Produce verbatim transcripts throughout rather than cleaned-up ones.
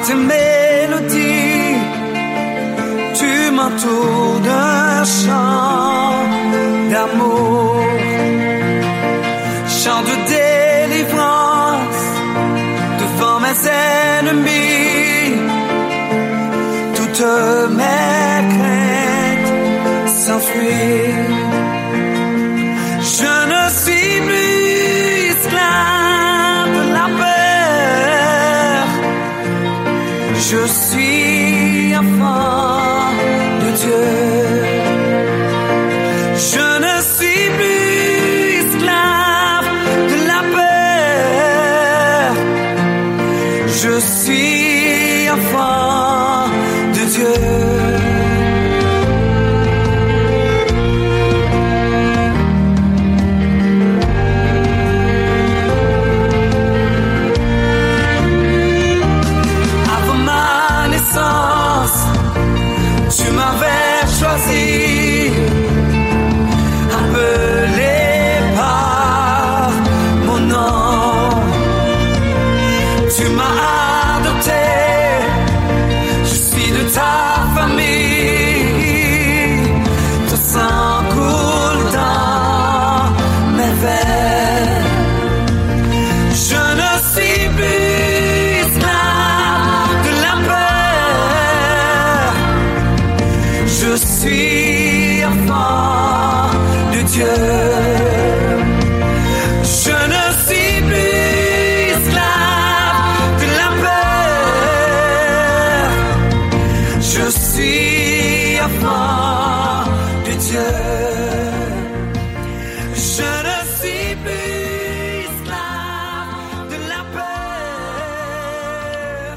Tes mélodies, tu m'entoures d'un chant d'amour, chant de délivrance devant mes ennemis. Toutes mes craintes s'enfuient. Je ne suis plus esclave de la peur. Je suis enfant de Dieu. Je ne suis plus esclave de la peur. Je suis enfant de Dieu. Avant ma naissance, tu m'avais choisi, appelé par mon nom. Tu m'as adopté, je suis de ta famille. Ton sang coule dans mes veines. Je ne suis plus esclave de la peur. Je suis enfant de Dieu. Je ne suis plus esclave de la peur. Je suis enfant de Dieu. Je ne suis plus esclave de la peur.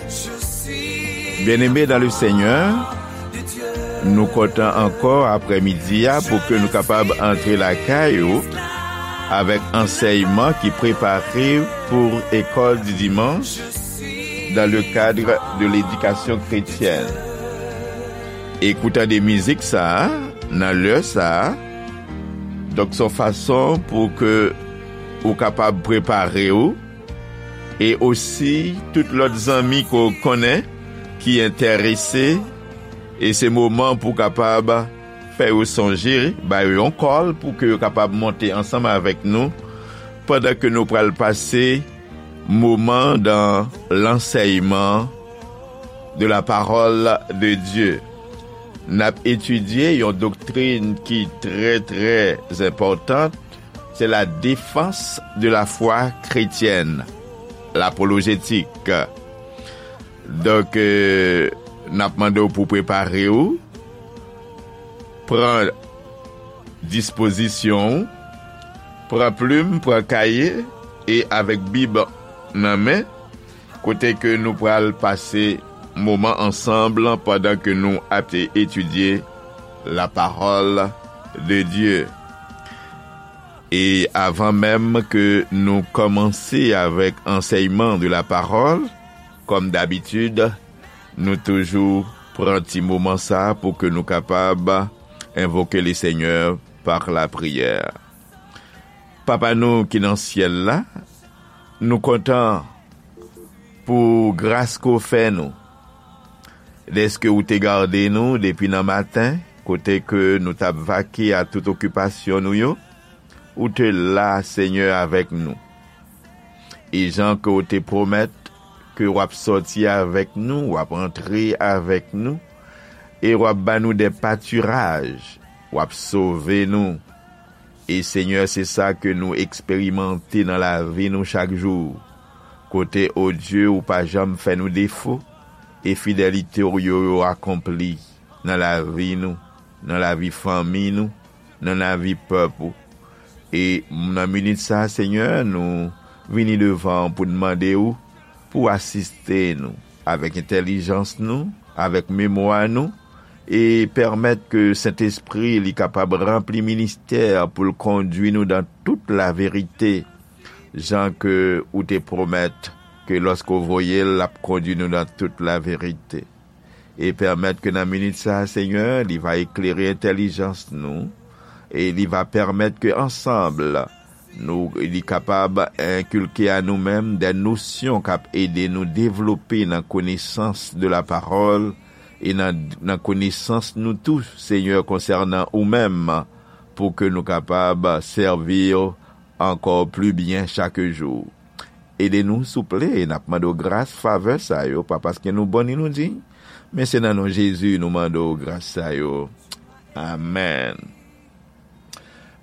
Je suis Bien-aimés dans le Seigneur, nou kontan ankò aprèmidi a pou ke nou kapab antre lakay ou avèk ansèyman ki prepare pou école du dimanche dans le cadre de l'éducation chrétienne. E kou tande mizik sa a, nan lè sa a, donk se yon fason pou ke ou kapab prepare w, e osi tout lòt zanmi ke w konnen ki enterese, e se moman pou w kapab fè yo sonje, ba yo yon call pou ke yo kapab monte ansanm avèk nou, pandan ke nou pral pase moman dans l'enseignement de la parole de Dieu. N ap etidye yon doktrin ki trè, trè enpòtan, se la défense de la foi chrétienne, lapolojetik. Donk, euh, n ap mande w pou prepare w, pran dispozisyon w, pran plim, pran kaye, e avèk Bib nan men, kote ke nou pral pase moman ansanm pandan ke nou ap etidye la parole de Dieu. E avan menm ke nou kòmanse avèk ansèyman de la parole, kòm dabitid, nou toujou pran ti moman sa pou ke nou kapab envoke le Seigneur par la prière. Papa nou ki nan syèl la, nou kontan pou gras ke w fè nou. Dèske ou te gade nou depi nan maten, kote ke nou t ap vake a tout okipasyon nou yo, ou te la, Senyè, avèk nou. E jan ke w te pwomèt ke w ap sòti avèk nou, w ap antre avèk nou, e w ap ba nou de patiraj, w ap sove nou. E Senyè, se sa ke nou eksperimante nan lavi nou chak jou. Kote, o Dye, ou pa janm fè nou defo, e fidelite w yo, yo akonpli nan lavi nou, nan lavi fanmi nou, nan lavi pèp ou. E nan minit sa, Senyè, nou vini devan w pou n mande w pou w asiste nou avèk entèlijans nou, avèk memwa nou, e pèmèt ke Sentespri li kapab ranpli ministè pou l kondui nou dan tout laverite, jan ke ou te pwomèt ke lòske w voye l, l ap kondui nou dan tout laverite. E pèmèt ke nan minit sa, Senyè, li va eklere entèlijans nou, e li va pèmèt ke ansanm, Nou, li kapab enkilke a nou menm de nosyon k ap ede nou devlope nan konesans de la parole e nan, nan konesans nou tou, Senyè, konsènan ou menm, pou ke nou kapab sèvi w ankò pli byen chak jou. Ede nou, souple, e n ap mande w gras, favè sa yo, pa paske nou bon ni nou diy, men se nan non Jezi nou mande w gras sa yo. Amèn.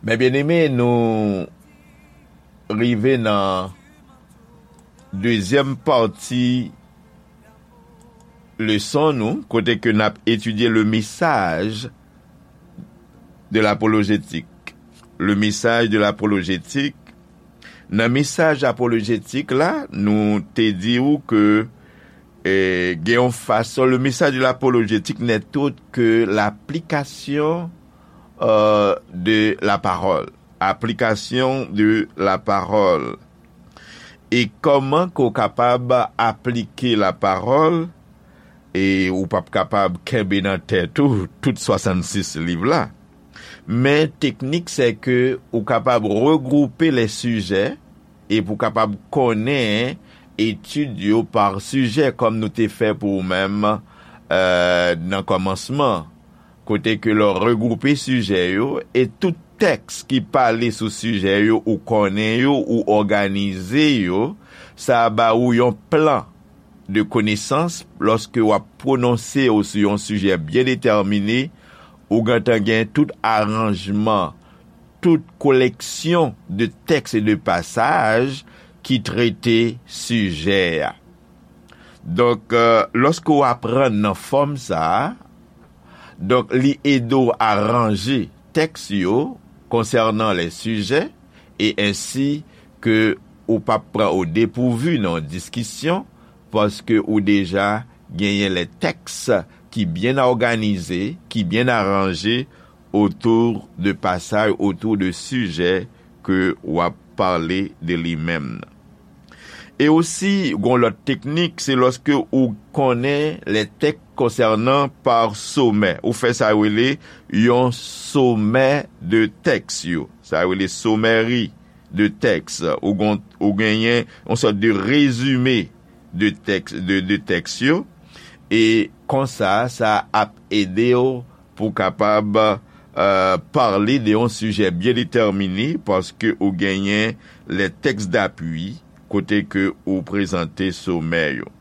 Men byeneme, nou rive nan dezyèm pati leson nou, kote ke n ap etidye le message de l'apologétique. Le message de l'apologétique. Nan mesaj apolojetik la, nou te di w ke, eh, gen yon fason, le message de l'apologétique n'est autre que l'application, euh, de la parole. Application de la parole. E kòman ke w kapab aplike la parole, e ou p ap kapab kenbe nan tèt ou tout swasannsis liv la. Men teknik, se ke ou kapab regwoupe les sujets e pou w kapab konnen etid yo pa sijè, kòm nou te fè pou ou menm, euh, nan kòmansman, kote ke lè w regwoupe sijè yo e tout tèks ki pale sou sijè yo, ou konnen yo, ou òganize yo, sa ba ou yon plan de konesans lòske w ap pwononse w sou yon sijè byen detèmine, ou gentan gen tout aranjman, tout koleksyon de tèks e de pasaj ki trete sijè a. Donk, euh, lòske w aprann nan fòm sa a, donk, li ede w aranje tèks yo konsènan les sujets e ensi ke ou p ap pran au dépourvu nan yon diskisyon, paske ou deja genyen les textes ki byen òganize, ki byen aranje autour de pasaj, autour de sijè ke w ap pale de li menm nan. E osi, gon lòt teknik, se lòske ou konnen les textes concernant par sommaire. Ou fè sa yo rele yon somè de tèks yo. Sa yo rele somèri de tèks. Ou gon, ou genyen yon sòt de rezime de tèks, de, de tèks yo. E konsa, sa ap ede w pou w kapab, euh, pale de yon sijè byen detèmine, paske ou genyen les textes d'appui, kote ke ou prezante somè yo.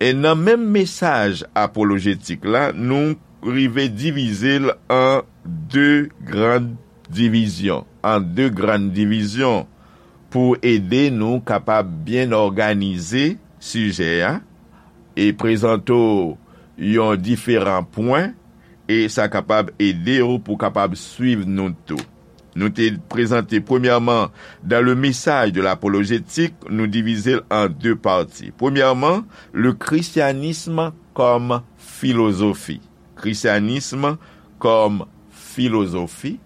E nan menm mesaj apolojetik la, nou rive divize l an de grann divizyon, an de grann divizyon, pou ede nou kapab byen òganize sijè a e prezante w yon diferan pwen, e sa kapab ede w pou w kapab swiv nou tou. Nou te prezante, premyèman, dans le message de l'apologétique, nou divize l an de pati. Premyèman, le christianisme comme philosophie. Christianisme comme philosophie.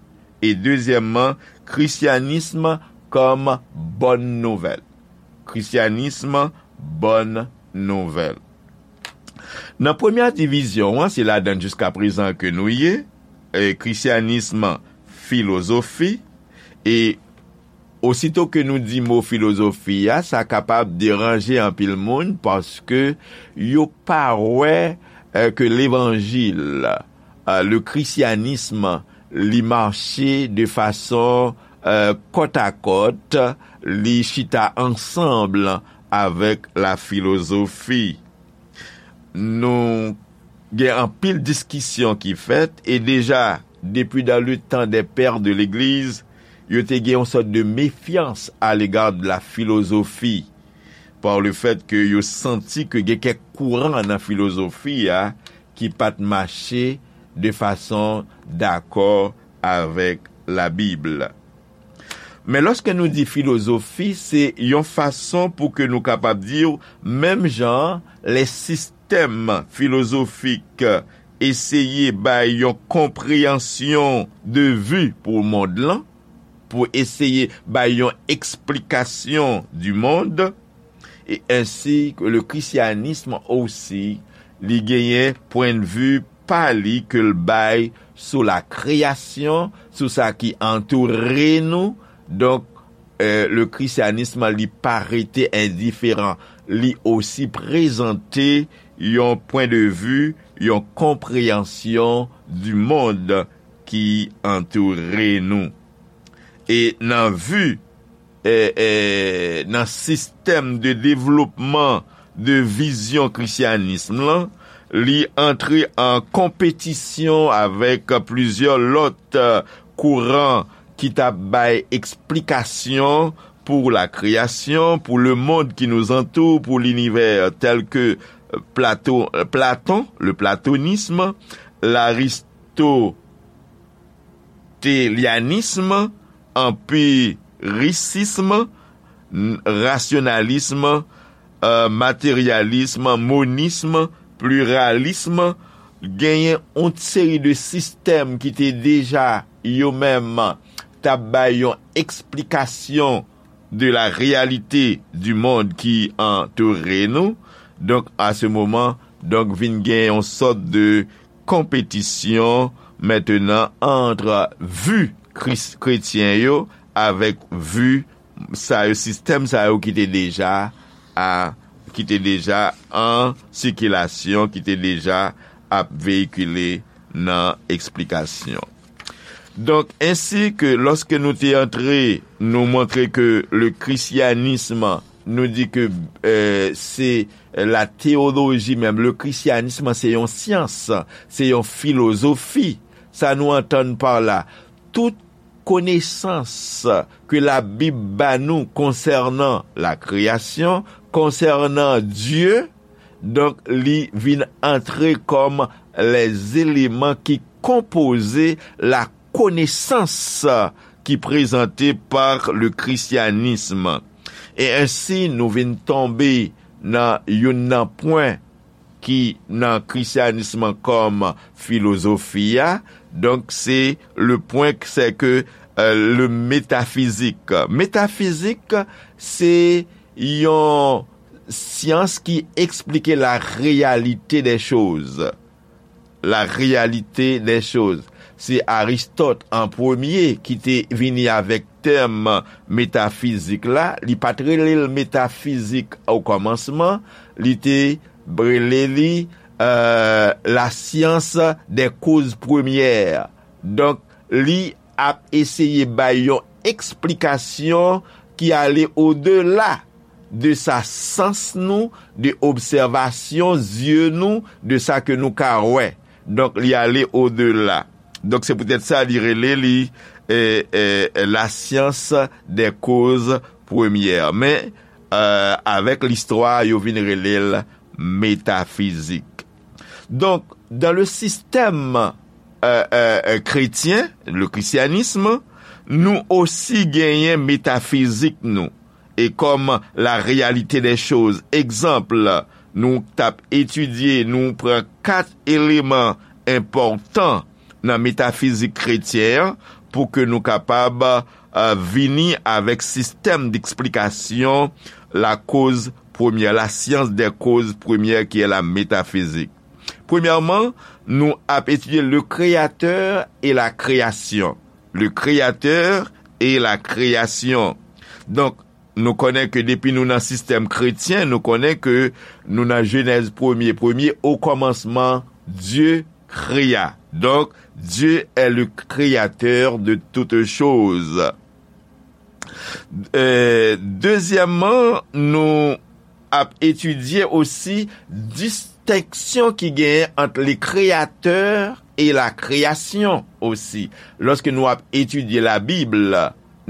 E dezyèmman, christianisme comme bonne nouvelle. Christianisme, bonne nouvelle. Nan premyè divizyon an, se ladan l jiskaprezan ke nou ye, e, christianisme, philosophie, e osito ke nou di mo filozofi a, sa kapab deranje anpil moun paske yo pa wè, e, ke levanjil, e, le christianisme, li mache de fason, e, kòtakòt, li chita ansanm avèk la filozofi. Nou gen anpil diskisyon ki fèt, e deja, depi dans le temps des pères de l'Église, yo te gen yon sòt de mefyans à l'égard de la philosophie, par le fait que yo santi ke gen kèk kouran nan filozofi a ki pa t mache de fason dakò avèk Labib. Men lòske nou di filozofi, se yon fason pou ke nou kapab di w, menm jan lè sistèm filozofik eseye bay yon konpreyansyon de vi pou mond lan, pou eseye bay yon eksplikasyon du monde, e ensi ke le christianisme osi, li genyen pwennvi pa li ke l bay sou la kreyasyon, sou sa ki antoure nou. Donk, eh, le christianisme, li pa rete endiferan. Li osi prezante yon pwen de vi, yon konpreyansyon di mond ki antoure nou. E nan vi, eh, eh, nan sistèm de devlopman de vizyon krisyanism lan, li antre an konpetisyon avèk plizyè lòt, eh, kouran ki t ap bay eksplikasyon pour la création, pour le monde qui nous entoure, pour l'univers, tels que Plato, Platon, le platonisme, l'aristotélianisme, empiricisme, n- rationalisme, euh, matérialisme, monisme, pluralisme, genyen yon seri de sistèm ki te deja yo menm t ap bay yon eksplikasyon de la réalité du monde qui entoure nous. Donk, à ce moment, donk, vin gen yon sòt de konpetisyon mentnan ant vi kris- kretyen yo avèk vi sa yo, sistèm sa yo ki te deja a, ki te deja an sikilasyon, ki te deja ap veyikile nan eksplikasyon. Donk, ensi ke lòske nou te antre, nou montre ke le christianisme, nou di ke, eh, se la théologie même. Le christianisme, se yon syans, se yon filozofi. Sa nou antann pa la, tout konesans ke Labib ba nou konsènan la kreyasyon, konsènan Dye, donk, li vin antre kòm les éléments ki konpoze la connaissance ki prezante par le christianisme. E ensi, nou vin tonbe nan youn nan pwen ki nan krisyanism kòm filozofi a. Donk, se le pwen, se ke, euh, le métaphysique. Métaphysique, se yon syans ki eksplike la réalité des choses. La réalité des choses. Se Aristòt an premye ki te vini avèk tèm metafizik la. Li pa t rele l metafizik o kòmansman. Li te rele li, euh, la science des causes premières. Donk, li ap eseye bay yon eksplikasyon ki ale odela de sa sans nou, de obsèvasyon zye nou, de sa ke nou ka wè. Donk, li ale odela. Donk, se poutèt sa li rele li, eh, eh, la science des causes premières. Men, eh, avèk listwa, yo vin rele l metafizik. Donk, dans le système, eh, eh, eh, chrétien, le christianisme, nou osi genyen metafizik nou. E kòm la réalité des choses. Egzanp, nou t ap etidye, nou pran kat eleman enpòtan nan metafizik kretyen an pou ke nou kapab, euh, vini avèk sistèm d'eksplikasyon la cause première, la science des causes premières qui est la métaphysique. Premyèman, nou ap etidye le créateur et la création. Le créateur et la création. Donk, nou konnen ke depi nou nan sistèm kretyen, nou konnen ke nou nan Jenèz premye, premye, au commencement, Dieu créa. Donc, Dieu est le créateur de toutes choses. Euh, dezyèmman, nou ap etidye osi distenksyon ki genyen ant le créateur et la création osi. Lòske nou ap etidye Labib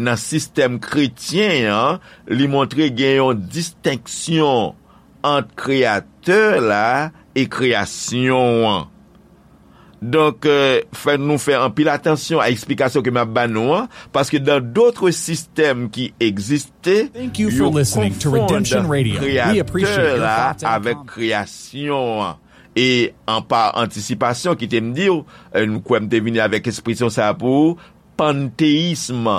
nan sistèm kretyen an, li montre gen yon distenksyon ant kreyatè la e kreyasyon an. Donk, euh, fè nou fè anpil atansyon a eksplikasyon ke m ap ba nou an, paske dans d'autres systèmes qui existent, Thank you for yo listening to konfonn Redemption Radio. We appreciate kreyatè your la thoughts and avèk comments. Kreyasyon an. E an pa antisipasyon, kite m di w, euh, m kwè m te vini avèk ekspresyon sa a pou ou, panteyism,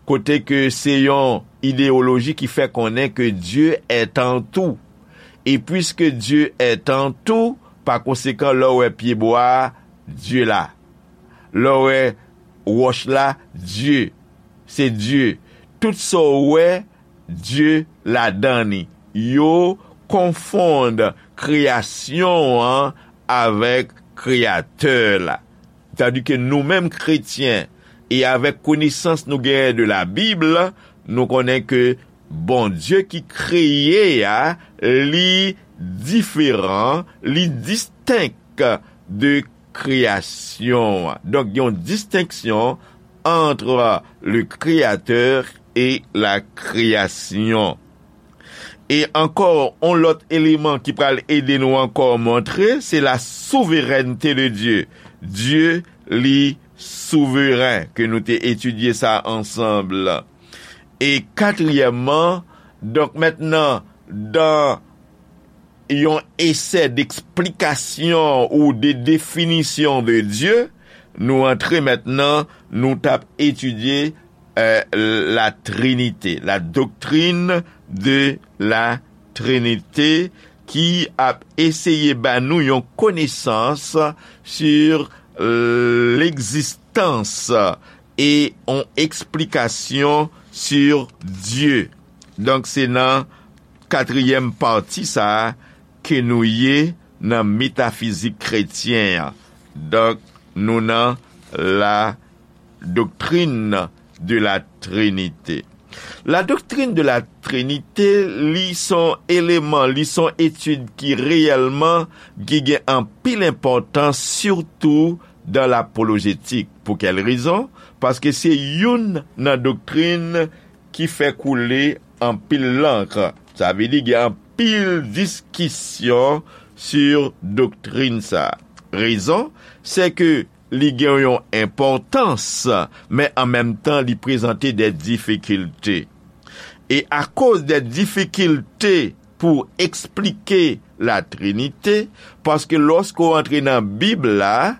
kote ke se yon ideyoloji ki fè konnen ke Dieu est en tout. E puiske Dieu est en tout, pa konsekan, lè w wè pyebwa a, Dieu la. Lè w wè wòch la, Dieu, se Dieu. Tout sa w wè, Dye ladan li. Yo konfonn kreyasyon an avèk Kreyatè la. Tandike nou menm kretyen, e avèk konesans nou genyen de la Bib, nou konnen ke Bondye ki kreye a, li diferan, li distenk de kreyasyon an. Donk, gen yon distenksyon entre le Créateur et la création. E ankò, yon lòt eleman ki pral ede nou ankò montre, se la souveraineté de Dieu. Dye, li souveren, ke nou te etidye sa ansanm. E katriyèmman, donk mentnan, dan yon esè d'eksplikasyon ou de definisyon de Dye, nou antre mentnan, nou t ap etidye euh, la Trinité, la doctrine de la Trinité, ki ap eseye ba nou yon konesans sur l'existence e yon eksplikasyon sur Dye. Donk, se nan katriyèm pati sa a ke nou ye nan metafizik kretyen an. Donk, nou nan la doctrine de la Trinité. La doctrine de la Trinité, li son eleman, li son etid ki reyèlman ki gen anpil enpòtans, sitou dan lapolojetik. Pou kèl rezon? Paske se youn nan doktrin ki fè koule anpil lank. Sa vle di gen anpil diskisyon sur doktrin sa. Rezon, se ke li gen yon enpòtans, men an menm tan li prezante de difikilte. E akoz de difikilte pou eksplike la Trinite, paske lòske w antre nan Bib la,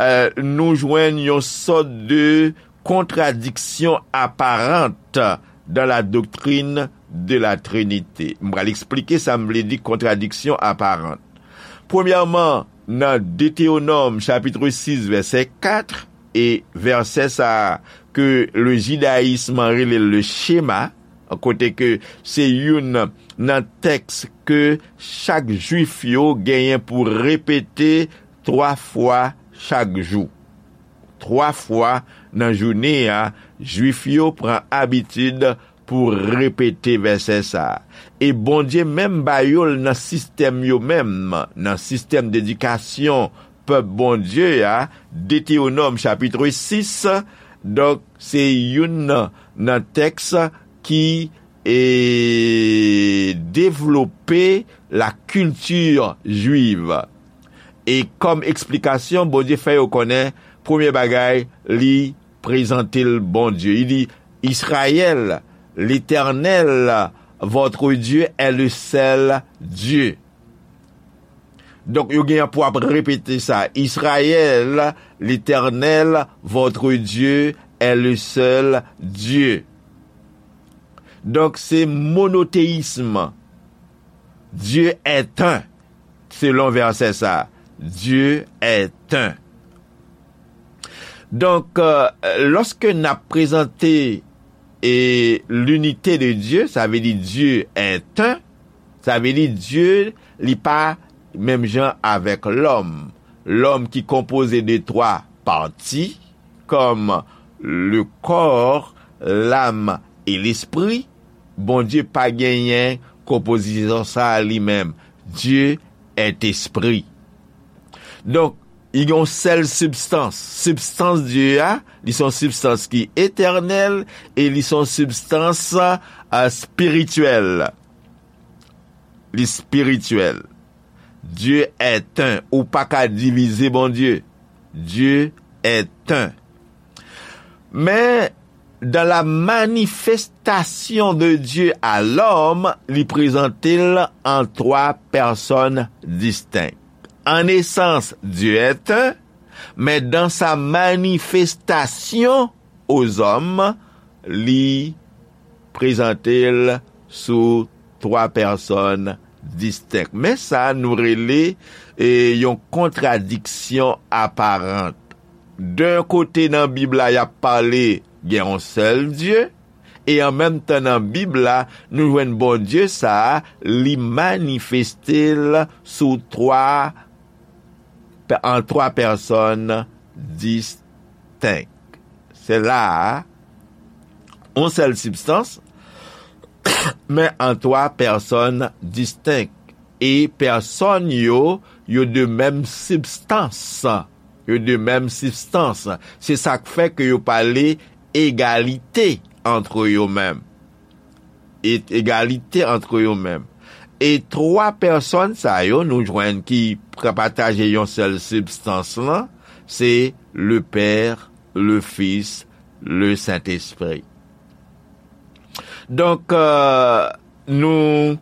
euh, nou jwenn yon sòt de contradiction apparente dans la doctrine de la Trinité. M pral eksplike sa m vle di kontradiksyon aparan. Premyèman, nan Detewonòm chapit sis vèsè kat, e vèsè sa a ke le jidayism rele le Shema, kote ke se youn nan tèks ke chak jwif yo genyen pou repete twa fwa chak jou. Twa fwa nan jounen an, jwif yo pran abitid pou repete vèsè sa a. E Bondye menm ba yo l nan sistèm yo menm, nan sistèm dedikasyon pèp Bondye a, Detewonòm chapit sis, donk se youn nan, nan tèks ki, e, devlope la culture juive. E kòm eksplikasyon, Bondye fè yo konnen, premye bagay, li prezante l Bondye. Li di, Israël, l'Éternel, votre Dieu, est le seul Dieu. Donk, yo gen pou ap repete sa. Israël, l'Éternel, votre Dieu, est le seul Dieu. Donk, se monoteyism. Dieu est un, selon vèsè sa. Dieu est un. Donk, euh, lòske n ap prezante e l'unité de Dieu, sa vle di Dieu est un, sa vle di Dye, li pa menm jan avèk lòm. Lòm ki konpoze de twa pati, kòm le corps, l'âme et l'esprit, Bondye pa genyen konpozisyon sa a li menm. Dieu est esprit. Donk, li gen yon sèl sibstans. Sibstans Dye a, li se yon sibstans ki etènèl e li se yon sibstans, a, espirityèl. Li espirityèl. Dieu est un. Ou pa ka divize Bondye. Dieu est un. Men, dans la manifestation de Dieu à l'homme, li prezante l an twa pèsòn distenk. En essence, Dieu est un, mais dans sa manifestation aux hommes, li prezante l sou twa pèsòn distenk. Men sa nou rele, e, yon kontradiksyon aparan. D'un kote nan Bib la, y ap pale gen yon sèl Dye, E an menm tan nan Bib la, nou jwenn Bondye sa a, li manifeste l sou twa, an twa pèsòn distenk. Se la a, yon sèl sibstans, men an twa pèsòn distenk. E pèsòn yo, yo de menm sibstans. Yo de menm sibstans. Se sa k fè ke yo pale egalite antre yo menm. E egalite antre yo menm. E twa pèsòn sa yo nou jwenn ki pataje yon sèl sibstans lan, se le Père, le Fils, le Saint-Esprit. Donk, euh, nou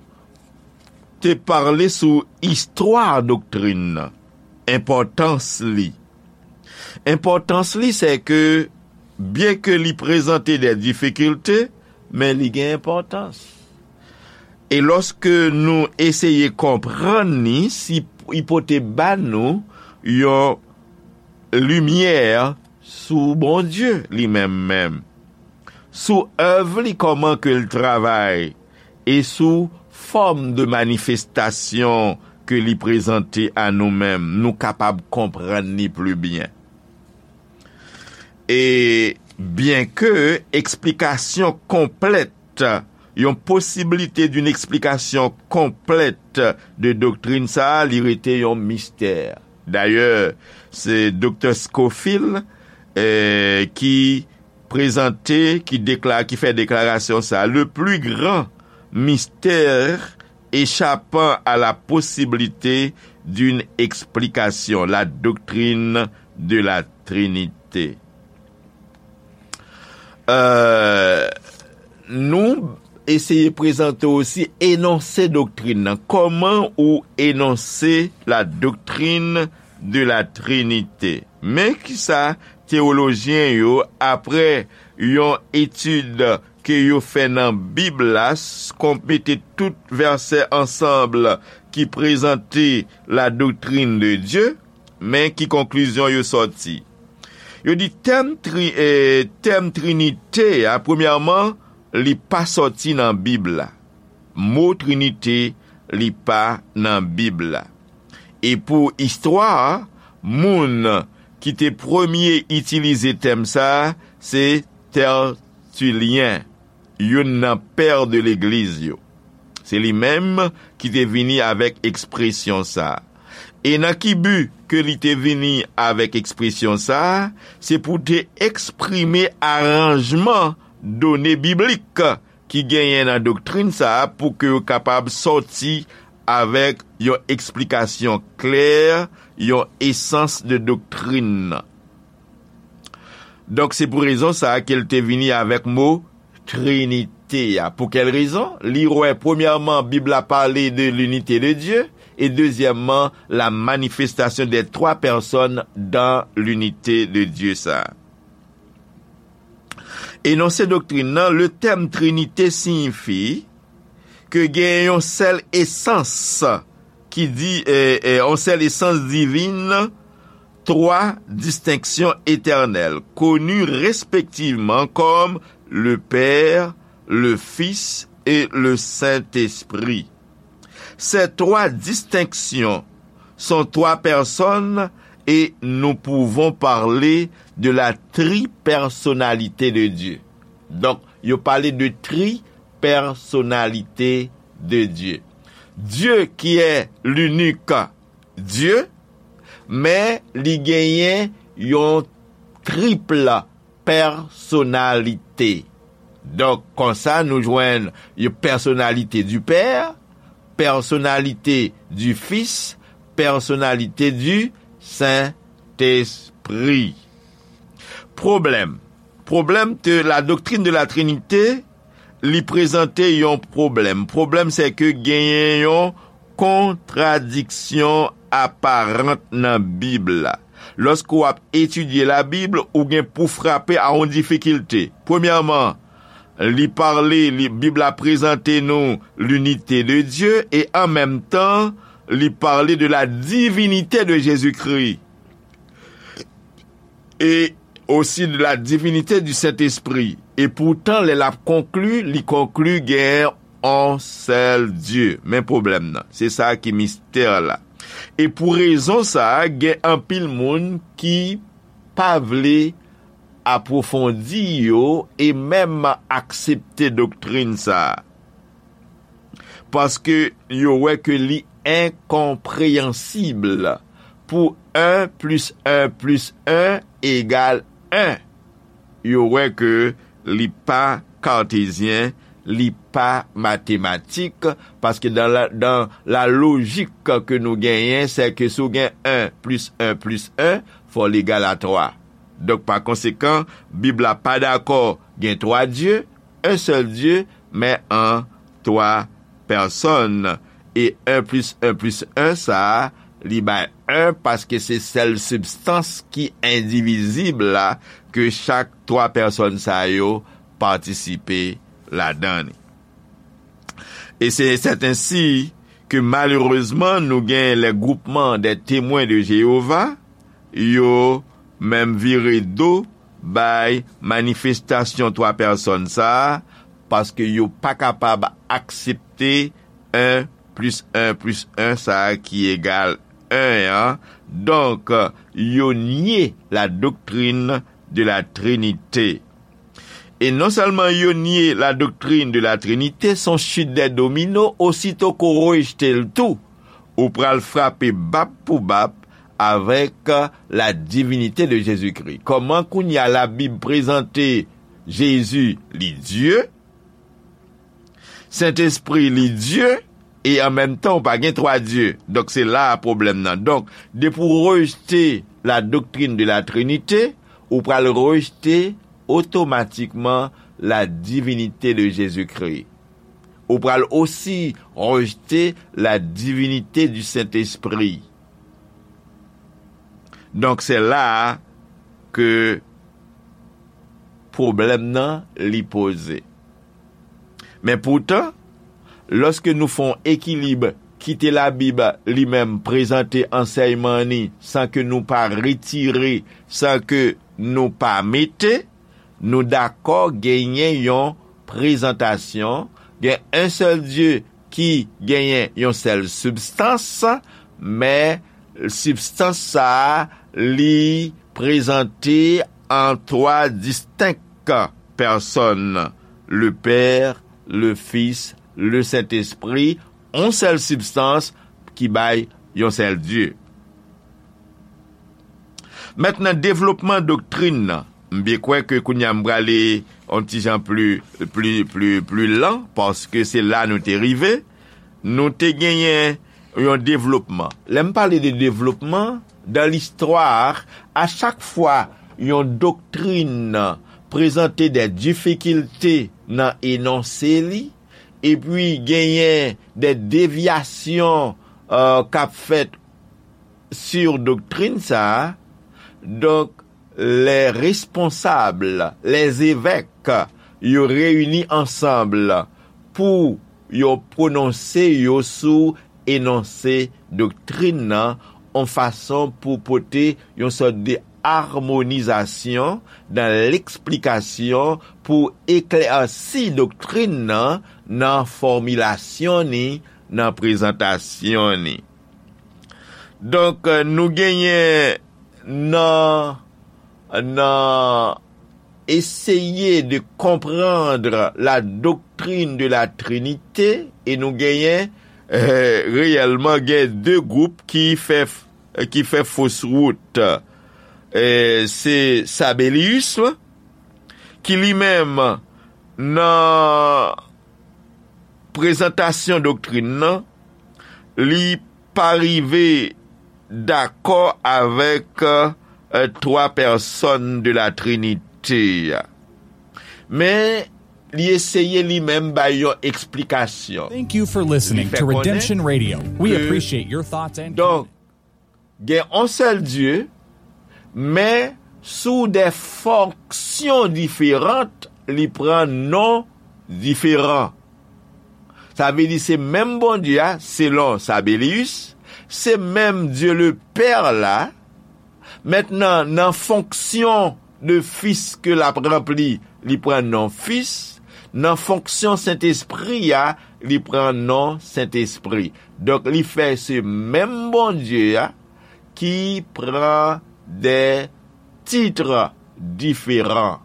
te pale sou istwa doktrin nan, enpòtans li. Enpòtans li, se ke, byen ke li prezante de difikilte, men li gen enpòtans. E lòske nou eseye konprann li, si, li pote ba nou yon limyè sou Bondye li menm menm, sou èv li, kòman ke l travay, e sou fòm de manifestasyon ke li prezante a nou menm, nou kapab konprann li pli byen. E byen ke eksplikasyon konplèt, yon posibilite d'une explication complète de doktrin sa a, li rete yon mistè. Dayè, se Doktè Scofield, eh, ki prezante, ki dekla-, ki fè deklarasyon sa. Le plus grand mystère échappant à la possibilité d'une explication, la doctrine de la Trinité. Euh, nou eseye prezante osi enonse doktrin nan. Kòman ou enonse la doctrine de la Trinité? Men kisa teyolojyen yo, apre yon etid ke yo fè nan Bib la, s-, kon mete tout vèsè ansanm ki prezante la doctrine de Dieu, men ki konklizyon yo sòti? Yo di tèm tri-, eh, tèm Trinite a, premyèman, li pa sòti nan Bib la. Mo Trinite, li pa nan Bib la. E pou istwa a, moun ki te premye itilize tèm sa a, se Tètilyen, youn nan pè de legliz yo. Se li menm ki te vini avèk ekspresyon sa a. E nan ki bi ke li te vini avèk ekspresyon sa a? Se pou te eksprime aranjman done biblik ki genyen nan doktrin sa a pou ke yo kapab sòti avèk yon eksplikasyon klè, yon esans de doktrin nan. Donk, se pou rezon sa a ke l te vini avèk mo Trinite a. Pou kèl rezon? Li wè, premyèman, Bib la pale de l'unité de Dieu, e dezyèmman, la manifestation des trois personnes dans l'unité de Dieu sa. Enonse doktrin nan, le tèm Trinite siyifi ke gen yon sèl esans ki di, eh, eh, yon sèl esans divin, twa distenksyon etènèl, koni respektivman kòm le Père, le Fils et le Saint-Esprit. Ces trois distinctions sont trois personnes et nous pouvons parler de la tripersonnalité de Dieu. Donk, yo pale de tripersonnalité de Dieu. Dieu qui est l'unique Dieu, men li genyen yon triple pèsonalite. Donk, konsa, nou jwenn yon personnalité du Père, personnalité du Fils, personnalité du Saint-Esprit. Pwoblèm. Pwoblèm de la doctrine de la Trinité, li prezante yon pwoblèm. Pwoblèm, se ke genyen yon kontradiksyon aparan nan Bib la. Lòske w ap etidye Labib, ou gen pou frape a yon difikilte. Premyèman, li pale, li, Bib la prezante nou l'unité de Dieu, e an menm tan, li pale de la divinité de Jésus-Christ. E osi de la divinité du Saint-Esprit. E poutan, lè l ap konkli, li konkli gen yon sèl Dye. Men pwoblèm nan. Se sa ki mistè la. E pou rezon sa a, gen anpil moun ki pa vle apwofondi yo e menm aksepte doktrin sa a. Paske yo wè ke li enkonpreyansib pou en plis en plis en egal en. Yo wè ke li pa kartezyen, li pa matematik, paske dan la, dan la lojik ke nou genyen, se ke si w gen en plis en plis en, fò l egal a twa. Donk, pa konsekan, Bib la pa dakò gen twa Dye, en sèl Dye, men an twa pèsòn. E en plis en plis en sa a, li bay en paske se sèl sibstans ki endivizib la ke chak twa pèsòn sa yo patisipe ladan li. E se sèten si ke malerezman nou gen les groupements des Témoins de Jéhovah, yo menm vire do bay manifestasyon twa pèsòn sa a, paske yo pa kapab aksepte en plis en plis en sa a ki egal en an. Donk, yo nye la doctrine de la Trinité. E non sèlman yo nye la doctrine de la Trinité, se yon chute des dominos, osito ke w rejte l tou, ou pral frape bap pou bap avèk la divinité de Jésus-Christ. Kòman kounye a Labib prezante Jezi, li Dye, Sentespri, li Dye, e an menm tan, ou pa gen twa Dye. Donk, se la a pwoblèm nan. Donk, depi w rejte la doctrine de la Trinité, ou pral rejte otomatikman la divinité de Jésus-Christ. Ou pral osi rejte la divinité du Saint-Esprit. Donk, se la a ke pwoblèm nan li poze. Men poutan, lòske nou fè yon ekilib, kite Labib li menm prezante ansèyman ni san ke nou pa retire, san ke nou pa mete, nou dakò genyen yon prezantasyon, gen yon sèl Dye ki genyen yon sèl sibstans, men sibstans sa a, li prezante an twa distenk pèsòn, le Père, le Fils, le Saint-Esprit, yon sèl sibstans ki bay yon sèl Dye. Mentnan, devlopman doktrin nan. M byen kwè ke kounye a m prale yon ti jan pli, pli, pli, pli lan, paske se la nou te rive. Nou te genyen yon devlopman. Lè m pale de devlopman, dan listwa, a chak fwa yon doktrin prezante de difikilte nan enonse li, epi genyen de devyasyon, euh, k ap fèt sou doktrin sa a, donk, les responsables, les évêques, yo reyini ansanm pou yo pwononse yo sou enonse doktrin nan, yon fason pou pote yon sòt de amonizasyon dan leksplikasyon, pou eklèsi doktrin nan, nan fòmilasyon ni, nan prezantasyon ni. Donk, nou genyen nan, nan eseye de comprendre la doctrine de la Trinité, e nou genyen, eh, reyèlman gen de gwoup ki fè, ki fè fos wout. Eh, se Sabellius, ki li menm nan prezantasyon doktrin nan, li pa rive dakò avèk, euh, twa pèsòn de la Trinité a. Men, li eseye li menm bay yon eksplikasyon. Thank you for listening to Redemption Radio. We appreciate your thoughts and donk, gen yon sèl Dye, men sou de fonksyon diferan, li pran non diferan. Sa vle di se menm Bondye a, selon Sabellius, se menm Dye le Pè la. Mentnan, nan fonksyon de Fis ke l ap ranpli, li pran non Fis, nan fonksyon Sentespri a, li pran non Sentespri. Donk, li fè se menm Bondye a ki pran de tit diferan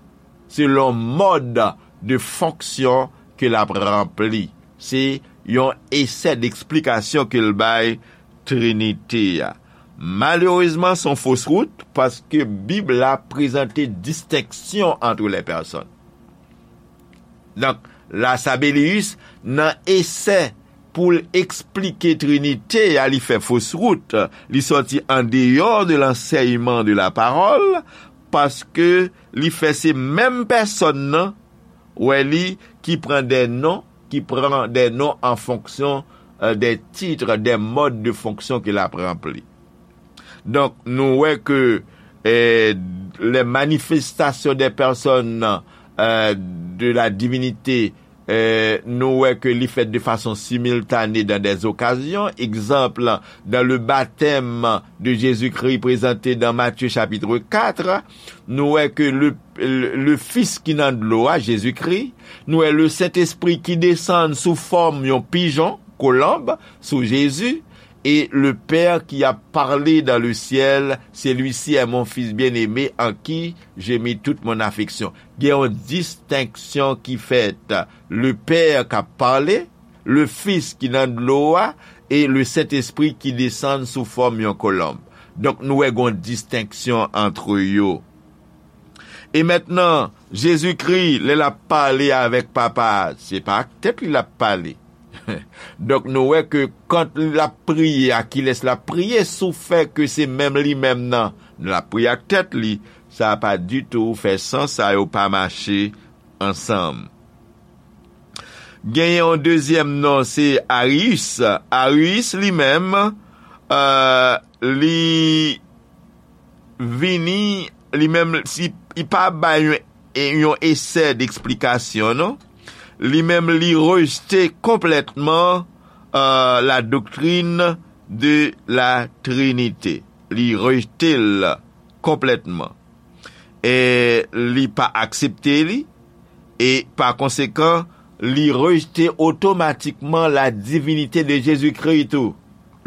selon mòd de fonksyon ke l ap ranpli. Se yon esè deksplikasyon ke l bay Trinite a. Malerezman, se yon fos wout, paske Bib la prezante distenksyon ant lè pèsòn. Donk, Lasabelius, nan esè pou l eksplike Trinite a, li fè fos wout, li sòti andeyò de lansèyman de lapawòl, paske li fè se menm pèsòn nan, wè li, ki pran de non, ki pran de non an fonksyon, euh, de tit, de mòd de fonksyon ke l ap ranpli. Donk, nou wè ke, eh, les manifestations des personnes, euh, de la divinité, eh, nou wè ke li fèt de fason similtane dans des occasions. Egzanp, dans le baptême de Jésus-Christ présenté dans Matthieu chapitre quatre, nou wè ke le, le, le Fis ki nan dlo a, Jezikri, nou wè le Sentespri ki desann sou fòm yon pijon, kolonb, sou Jezi, et le Père qui a parlé dans le ciel, celui-ci est mon Fils bien-aimé en qui j'ai mis toute mon affection. Gen yon distenksyon ki fèt. Le Père k ap pale, le Fis ki nan dlo a, e le Sentespri ki desann sou fòm yon kolonb. Donk, nou wè gen yon distenksyon ant yo. E mentnan, Jezikri, lè l ap pale avèk Papa a, se pa ak tèt li l ap pale. Donk, nou wè ke kan l ap priye, a kilès l ap priye, sou fè ke se menm li menm nan, l ap priye ak tèt li, sa pa ditou fè sans, sa yo pa mache ansanm. Genyen yon dezyèm non, se Arius. Arius, li menm, euh, li vini, li menm, si, li pa bay yon, yon esè deksplikasyon, non. Li menm, li rejte konplètman, euh, la doctrine de la Trinité. Li rejte l konplètman. E li pa aksepte li, e pa konsekan, li rejte otomatikman la divinite de Jezikri tou.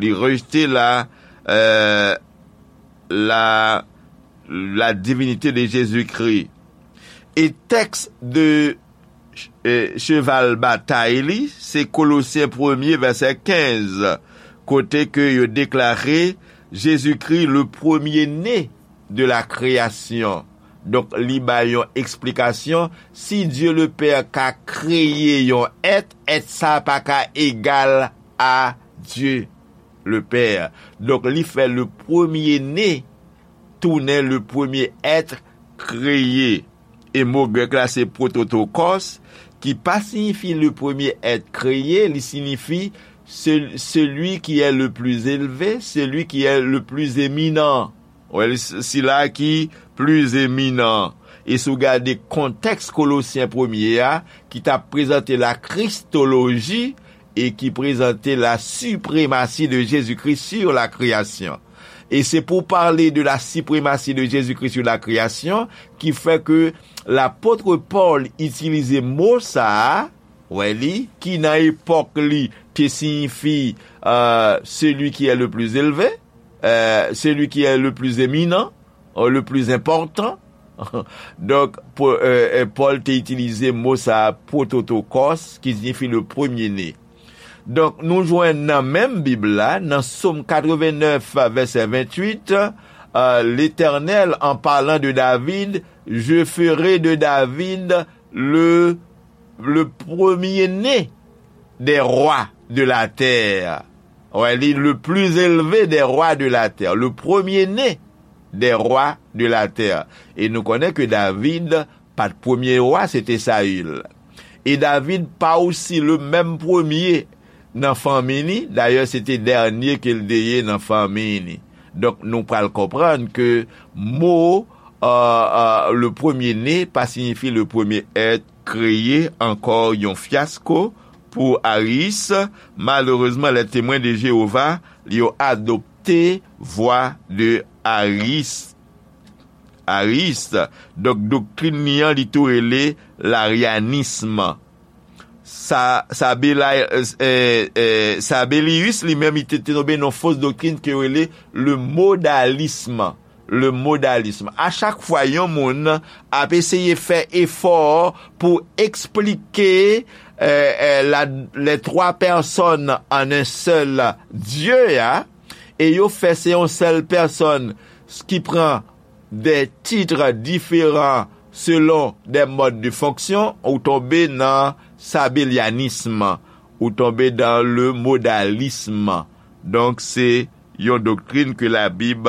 Li rejte la, euh, la, la divinite de Jezikri. E tèks de, eh, cheval batay li, se Kolosyen premye vèsè kenz, kote ke yo deklare Jezikri le premye ne de la kreyasyon. Donk, li bay yon eksplikasyon, si Dye le Pè ka kreye yon èt, èt sa pa ka egal a Dye le Pè. Donk, li fè le premye ne tounen le premye èt kreye. E mo grèk la se prototokos, ki pa siyifi le premye èt kreye, li siyifi se-, celui qui est le plus élevé, celui qui est le plus éminent. Wè, sila ki pli eminan. E si w gade kontèks Kolosyen premye a, ki t ap prezante la kristoloji e ki prezante la sipremasi de Jezikri sur la création. E se pou pale de la sipremasi de Jezikri sur la création ki fè ke lapot Pòl itilize mo sa a, wè li, ki nan epòk li te siyifi, euh, celui qui est le plus élevé, euh, celui qui est le plus éminent, euh, le plus important. Donk, po-, euh, euh, Pòl te itilize mo sa a, prototokos, ki siyifi le premye ne. Donk, nou jwenn nan menm Bib la, nan Sòm katrevennèf, vèsè venntuit, euh, L'Éternel, en parlant de David, je ferai de David le, le premier-né des rois de la terre. Wè, li, le plus élevé des rois de la terre, le premier-né des rois de la terre. E nou konnen ke David pa t premye wa, se te Sayil. E David pa osi le menm premye nan fanmi li, dayè se te dènye ke l te ye nan fanmi li. Donk, nou pral konprann ke mo, euh, euh, le premier-né pa siyifi le premier être créé, ankò yon fyasko pou Ariis. Malerezman, les Témoins de Jéhovah, yo adopte vwa de Ariis. Ariis. Donk, doktrin li an, li tou rele laryanism. Sa, Sabelay-, eh, eh, Sabellius, li menm, li te, te tonbe nan fos doktrin ke yo rele le modalisme. Le modalisme. A chak fwa yon moun ap eseye fè efò pou eksplike, eh, eh, la, les trois personnes en un seul Dieu, a, e yo fè se yon sèl pèsòn ki pran des titres différents selon des modes de fonction, ou tonbe nan sabelyanism, ou tonbe dans le modalisme. Donk, se yon doktrin ke Labib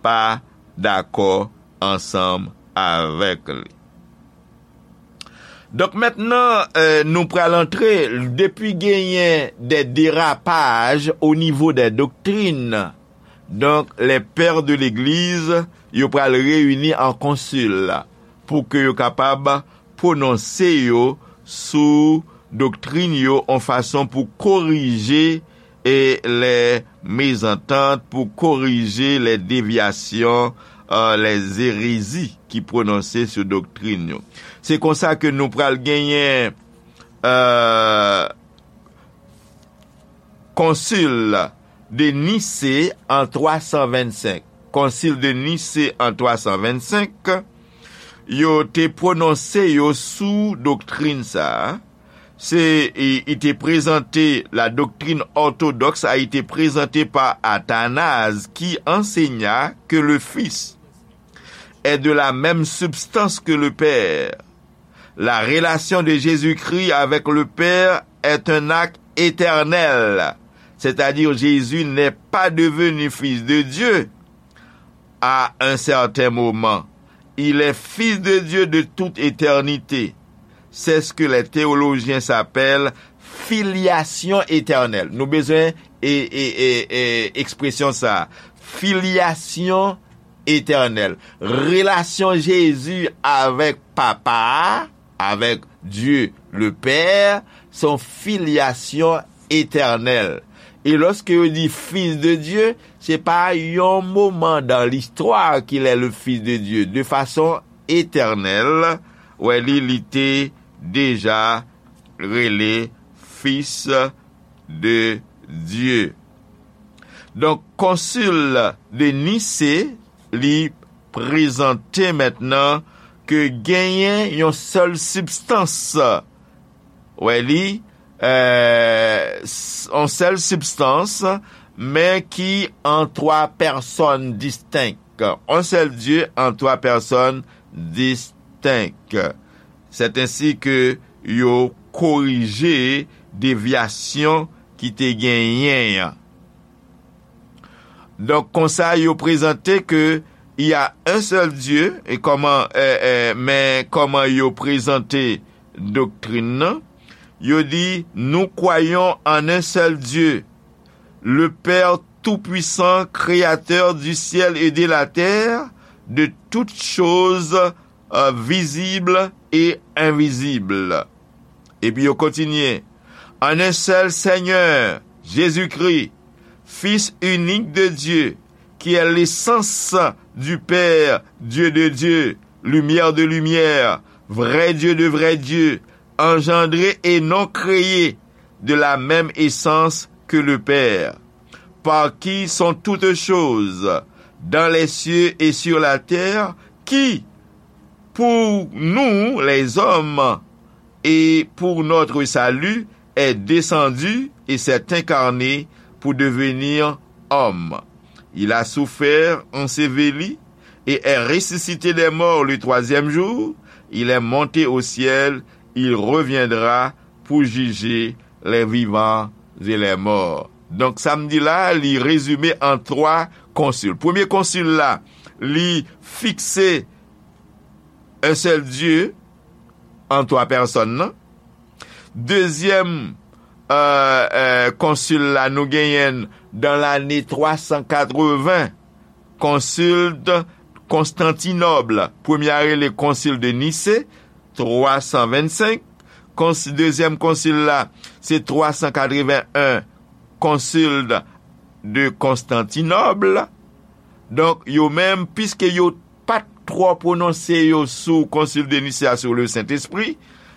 pa dakò ansanm avèk li. Donk, mentnan, eh, nou pral antre, depi genyen de derapaj o nivo de doktrin, donk, les pères de l'Église, yo pral reyini an konsil pou ke yo kapab pwononse yo sou doktrin yo, yon fason pou korije e les mésententes, pou korije les déviations, euh, les hérésies ki pwononse sou doktrin yo. Se konsa ke nou pral genyen, euh, Konsil de Nise an twa san vennsenk. Konsil de Nise an twa san vennsenk, yo te pwononse yo sou doktrin sa a. Se, i, i te prezante, la doctrine orthodoxe a été présentée par Athanase, qui enseigna que le Fils est de la même substance que le Père. La relation de Jésus-Christ avec le Père est un acte éternel, c'est-à-dire Jésus n'est pas devenu fils de Dieu à un certain moment. Il est fils de Dieu de toute éternité. C'est ce que les théologiens s'appellent filiation éternelle. Nou bezwen e, e, e, e, ekspresyon sa. Filiation éternelle. Relasyon Jezi avèk Papa a, avèk Dieu le Père, se yon filyasyon etènèl. E lòske yo di Fils de Dieu, se pa yon moman dans l'histoire qu'il est le Fils de Dieu. De façon éternelle, wè li, li te deja rele Fils de Dieu. Donk, Konsil de Nise, li prezante mentnan ke genyen yon sèl sibstans. Wè li, euh, s-, yon sèl sibstans, men ki an twa pèsòn distenk. Yon sèl Dye an twa pèsòn distenk. C'est ainsi que yo korije devyasyon ki te genyen an. Donk, konsa, yo prezante ke il y a un seul Dieu, e kòman, e, e, men kòman yo prezante doktrin nan, yo di, nous croyons en un seul Dieu, le Père tout-puissant, créateur du ciel et de la terre, de toutes choses, euh, visibles et invisibles. Epi yo kontinye, en un seul Seigneur, Jésus-Christ, Fils unique de Dieu, qui est l'essence du Père, Dieu de Dieu, lumière de lumière, vrai Dieu de vrai Dieu, engendré et non créé, de la même essence que le Père, par qui sont toutes choses, dans les cieux et sur la terre, qui, pour nous les hommes, et pour notre salut, est descendu et s'est incarné pour devenir homme. Il a souffert, enseveli, et est ressuscité des morts le troisième jour. Il est monté au ciel, il reviendra pour juger les vivants et les morts. Donk, sa m di la, li rezime an twa konsil. Premye konsil la, li fikse un seul Dieu an twa pèsòn nan. Dezyèm, euh, euh, konsil la, nou genyen l dan lane twa san katreven, konsil de Konstantinòb. Premye a rele konsil de Nise, twa san vennsenk. Konsi-, dezyèm konsil la, se twa san katreven en, konsil de, de Konstantinòb. Donk, yo menm, piske yo pa t twò pwononse yo sou Concile de Nicée a sur le Saint-Esprit.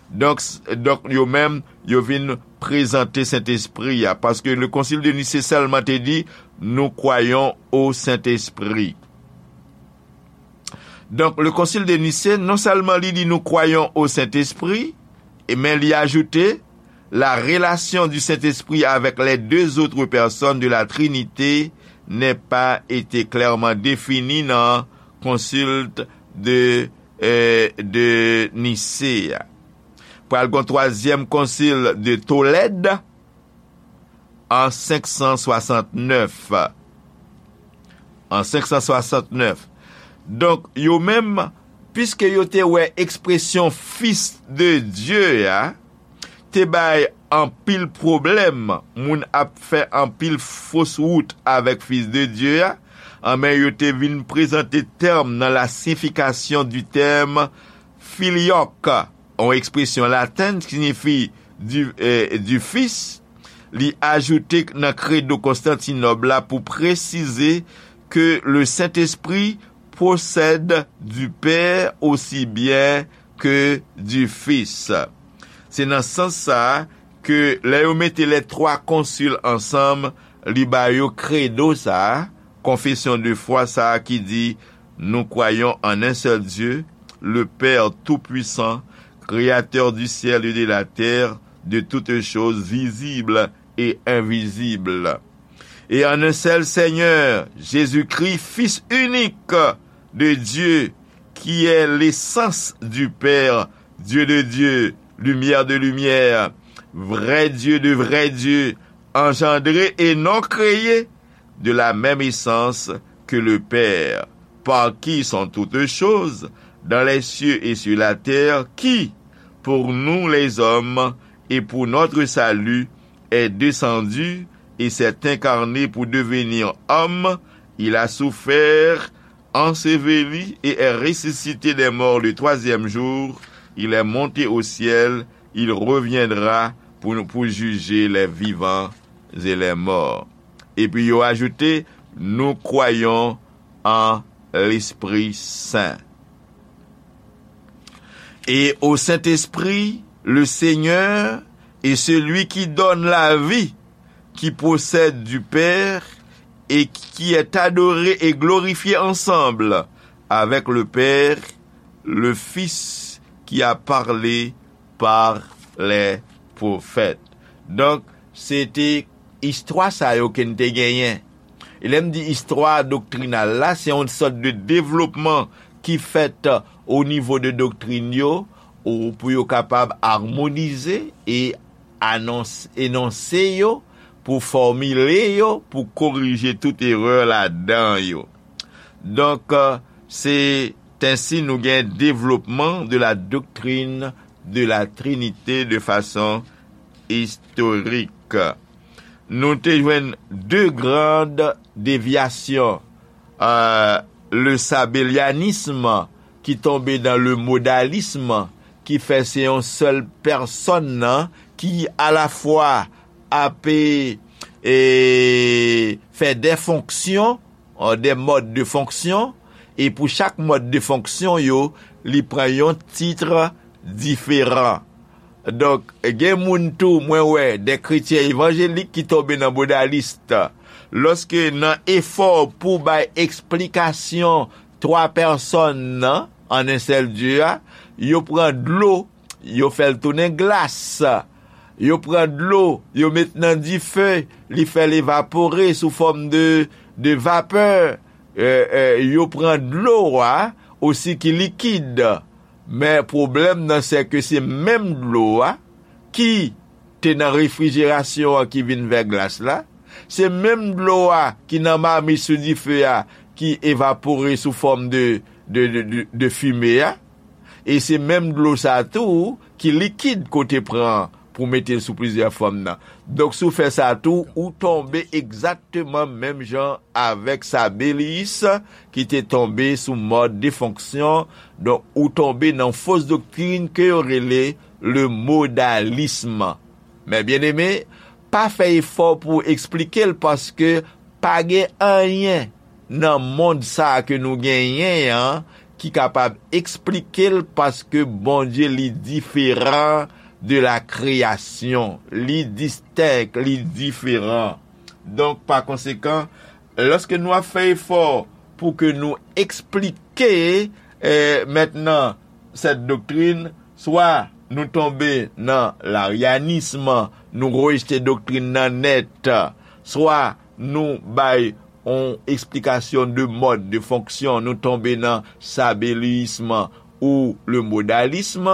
Donk, s- donk yo menm, yo vin prezante Sentespri a, paske le Concile de Nicée sèlman te di, nous croyons au Saint-Esprit. Donk, le Concile de Nicée, non sèlman li di nous croyons au Saint-Esprit, e men li ajoute, la relation du Saint-Esprit avec les deux autres personnes de la Trinité n'est pas été clairement définie dans Concile de, euh, de Nicée. Pral gon twazyèm Concile de Tolède en cinq cent soixante-neuf. En cinq cent soixante-neuf. Donk, yo menm, piske yo te wè ekspresyon Fils de Dieu a, te bay anpil pwoblèm, moun ap fè anpil fos wout avèk Fils de Dieu a, anben yo te vin prezante tèm nan la signification du terme filioque, yon ekspresyon latèn ki siyifi du, eh, du Fils, li ajoute nan Credo Konstantinòb la pou presize que le Saint-Esprit procède du Père aussi bien que du Fils. Se nan sans sa a ke lè yo mete les trois conciles ansanm, li ba yo kredo sa a, konfesyon de fwa sa a ki di, nous croyons en un seul Dieu, le Père tout-puissant, créateur du ciel et de la terre, de toutes choses visibles et invisibles, et en un seul Seigneur, Jésus-Christ, Fils unique de Dieu, qui est l'essence du Père, Dieu de Dieu, lumière de lumière, vrai Dieu de vrai Dieu, engendré et non créé, de la même essence que le Père, par qui sont toutes choses, dans les cieux et sur la terre, qui, pour nous les hommes, et pour notre salut, est descendu et s'est incarné pour devenir homme, il a souffert, enseveli et est ressuscité des morts le troisième jour, il est monté au ciel, il reviendra pour, pour juger les vivants et les morts. Epi yo ajoute, nous croyons en l'Esprit Saint. Et au Saint-Esprit, le Seigneur et celui qui donne la vie, qui procède du Père et qui est adoré et glorifié ensemble avec le Père, le Fils qui a parlé par les prophètes. Donk, se te istwa sa yo ke n te genyen. E lè m di istwa doktrinal la, se yon sòt de devlopman ki fèt o nivo de doktrin yo, ou pou yo kapab amonize e anons- enonse yo, pou fòmile yo, pou korije tout erè ladan yo. Donk, euh, c'est ainsi nou gen développement de la doctrine de la Trinité de façon historique. Nou te jwenn de grandes déviations, euh, le sabellianisme ki tonbe nan le modalisme, ki fè se yon sèl pèsòn nan ki alafwa ap e, fè de fonksyon, euh, des modes de fonction, e pou chak mòd de fonksyon yo, li pran yon tit diferan. Donk, gen moun tou, mwen wè, de kretyen evanjelik ki tonbe nan modalis. Lòske nan efò pou bay eksplikasyon twa pèsòn nan, an en sèl Dye a, yo pran dlo, yo fè l tounen glas. Yo pran dlo, yo met nan dife, li fè l evapore sou fòm de, de vapè. E, e, yo pran dlo a osi ki likid. Men pwoblèm nan, se ke se menm dlo a ki te nan refrijerasyon an ki vin vè glas la. Se menm dlo a ki nan mamit sou dife a ki evapore sou fòm de, de, de, de, de fime a. E se menm dlo sa tou ki likid kote pran pou mete l sou plizyè fòm nan. Donk, si w fè sa tou, ou tonbe egzakteman menm jan avèk Sabellius ki te tonbe sou mòd de fonksyon. Donk, ou tonbe nan fos doktrin ke yo rele le modalisme. Men byeneme, pa fè efò pou w eksplike l, paske pa gen anyen nan mond sa a ke nou genyen an ki kapab eksplike l, paske Bondye li diferan de la kreyasyon, li distenk, li diferan. Donk, pa konsekan, lòske nou ap fè efò pou ke nou eksplike, eh, mentnan, sèt doktrin, swa nou tonbe nan laryanism, nou rejte doktrin nan nèt, swa nou bay yon eksplikasyon de mòd de fonksyon, nou tonbe nan sabeliyism ou le modalism,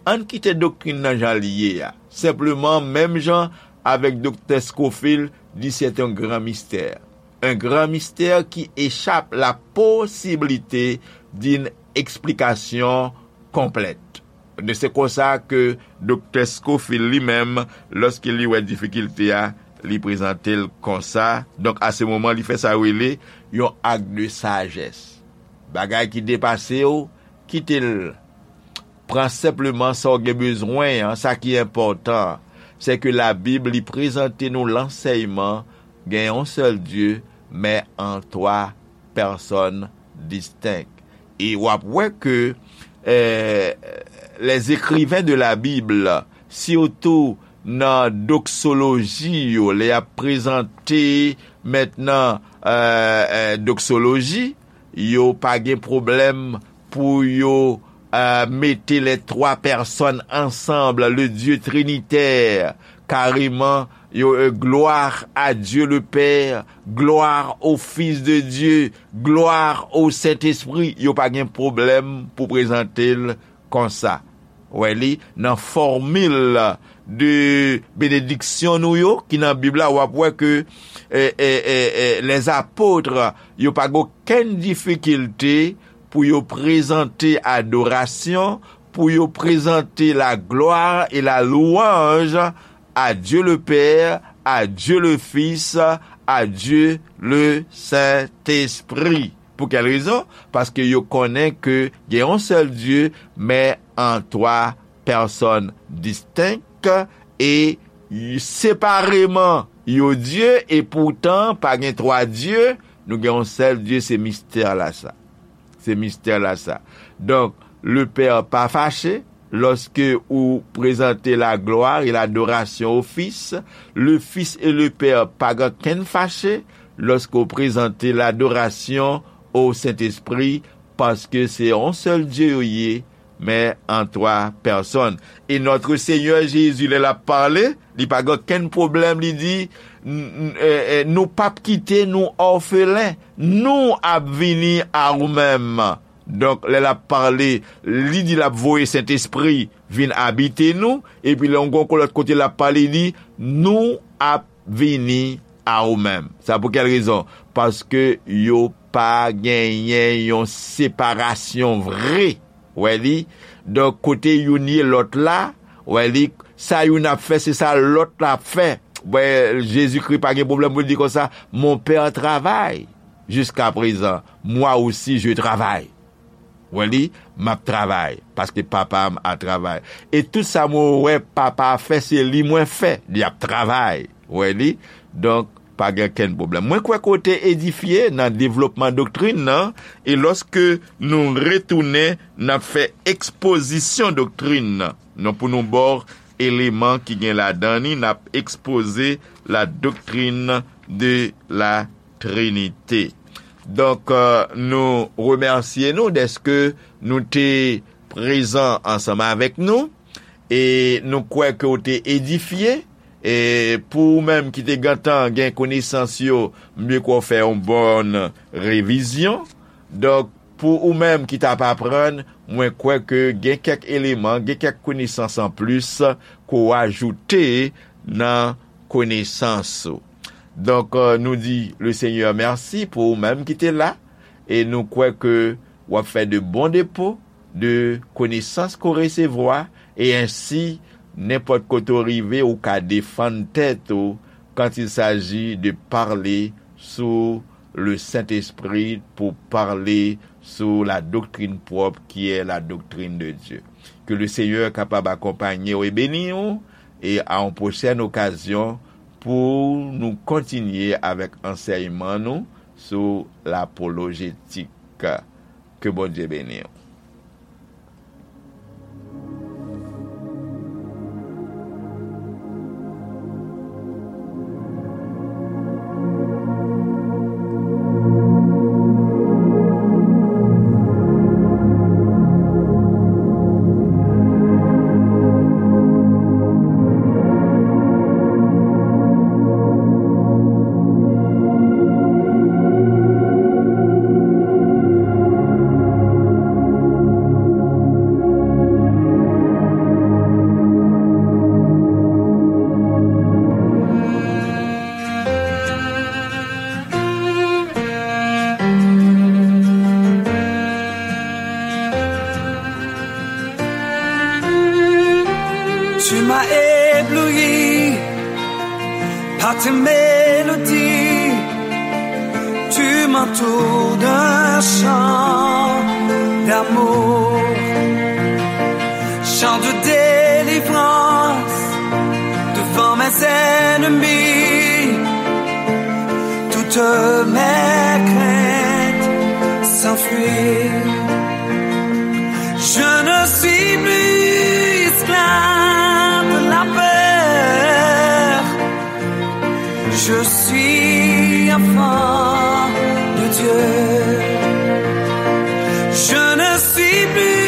ann kite doktrin nan jan l ye a. Senpleman, menm jan avèk Doktè Scofield, di c'est un grand mystère. Un grand mystère qui échappe la possibilité d'une explication complète. De se konsa ke Doktè Scofield li menm, lòske li wè difikilte a, li prezante l konsa. Donk, a se moman, li fè sa yo rele yon ak de sajès. Bagay ki depase w, kite l. Pran senpleman sa w gen bezwen an, sa ki enpòtan, se ke Labib li prezante nou lansèyman gen yon sèl Dye, men an twa pèsòn distenk. E w ap wè ke, eh, les écrivains de la Bible, sitou nan doksoloji yo, lè y ap prezante mentnan, eh, eh, doksoloji, yo pa gen pwoblèm pou yo, eh, mete les trois personnes ensemble, le Dieu trinitaire, kareman, yo, eh, gloire à Dieu le Père, gloire au Fils de Dieu, gloire au Saint-Esprit, yo pa gen pwoblèm pou prezante l konsa. Wè li, nan fòmil de benediksyon nou yo, ki nan Bib la, w ap wè ke, eh, eh, eh, eh, les apôtres, yo pa gen okenn difikilte pou yo prezante adorasyon, pou yo prezante la gloire et la louange à Dieu le Père, à Dieu le Fils, à Dieu le Saint-Esprit. Pou kèl rezon? Paske yo konnen ke gen yon sèl Dye, men an twa pèsòn distenk, e separeman yo Dye, e poutan pa gen twa Dye, nou gen yon sèl Dye, se mistè la sa. Se mistè la sa. Donk, le Pè pa fache lòske ou prezante la gloire et l'adoration au Fils. Le Fils et le Père pa gen kenn fache lòske ou prezante l'adoration au Saint-Esprit, paske se yon sèl Dye yo ye, men an twa pèsòn. E Notre Seigneur Jésus, lè l ap pale, li pa gen okenn pwoblèm, li di, "N-, n-, eh, eh, nou p ap kite nou òfelen, nou ap vini a ou menm." Donk, lè l ap pale, li di l ap voye Sentespri vin abite nou, epi lè yon gon lòt kote l ap pale, li di, "Nou ap vini a ou menm." Sa pou kèl rezon? Paske yo pa genyen yon separasyon vre. Wè li? Donk, kote youn ye lòt la, wè li, sa youn ap fè, se sa lòt la ap fè. Wè, Jezikri pa gen pwoblèm pou l di konsa, "Mon Père travaille jusqu'à présent, moi aussi je travaille." Wè li, "M ap travay, paske Papa m ap travay. E tout sa mwen wè Papa a fè, se li mwen fè, li ap travay." Wè li? Donk, pa gen kenn pwoblèm. Mwen kwè ke w te edifye nan devlopman doktrin nan, e lòske nou retounen, n ap fè ekspozisyon doktrin nan. Non, pou nou ba w eleman ki gen ladan li, n ap ekspoze la doctrine de la Trinité. Donk, euh, nou remèsye nou dèske nou te prezan ansanm avèk nou, e nou kwè ke w te edifye. E pou ou menm ki te gentan gen konesans yo, m vle ke w fè yon bòn revizyon. Donk, pou ou menm ki t ap aprann, mwen kwè ke gen kèk eleman, gen kèk konesans anplis ke w ajoute nan konesans ou. Donk, euh, nou di le Seigneur mèsi pou ou menm ki te la, e nou kwè ke w ap fè de bon depo de konesans ke w resevwa, e ensi, nenpòt kote w rive, ou ka defann tèt ou quand il s'agit de parler sou le Saint-Esprit, pou pale sou la doktrin pwòp ki è la doktrin de Dye. Ke le Seigneur kapab akonpanye w e beni w, e a yon pwochèn okazyon pou nou kontinye avèk ansèyman nou sou lapolojetik. Ke Bondye beni w. Tu m'as ébloui par tes mélodies. Tu m'entoures d'un chant d'amour, chant de délivrance devant mes ennemis. Toutes mes craintes s'enfuient. Je ne suis plus esclave de la peur. Je suis enfant de Dieu. Je ne suis plus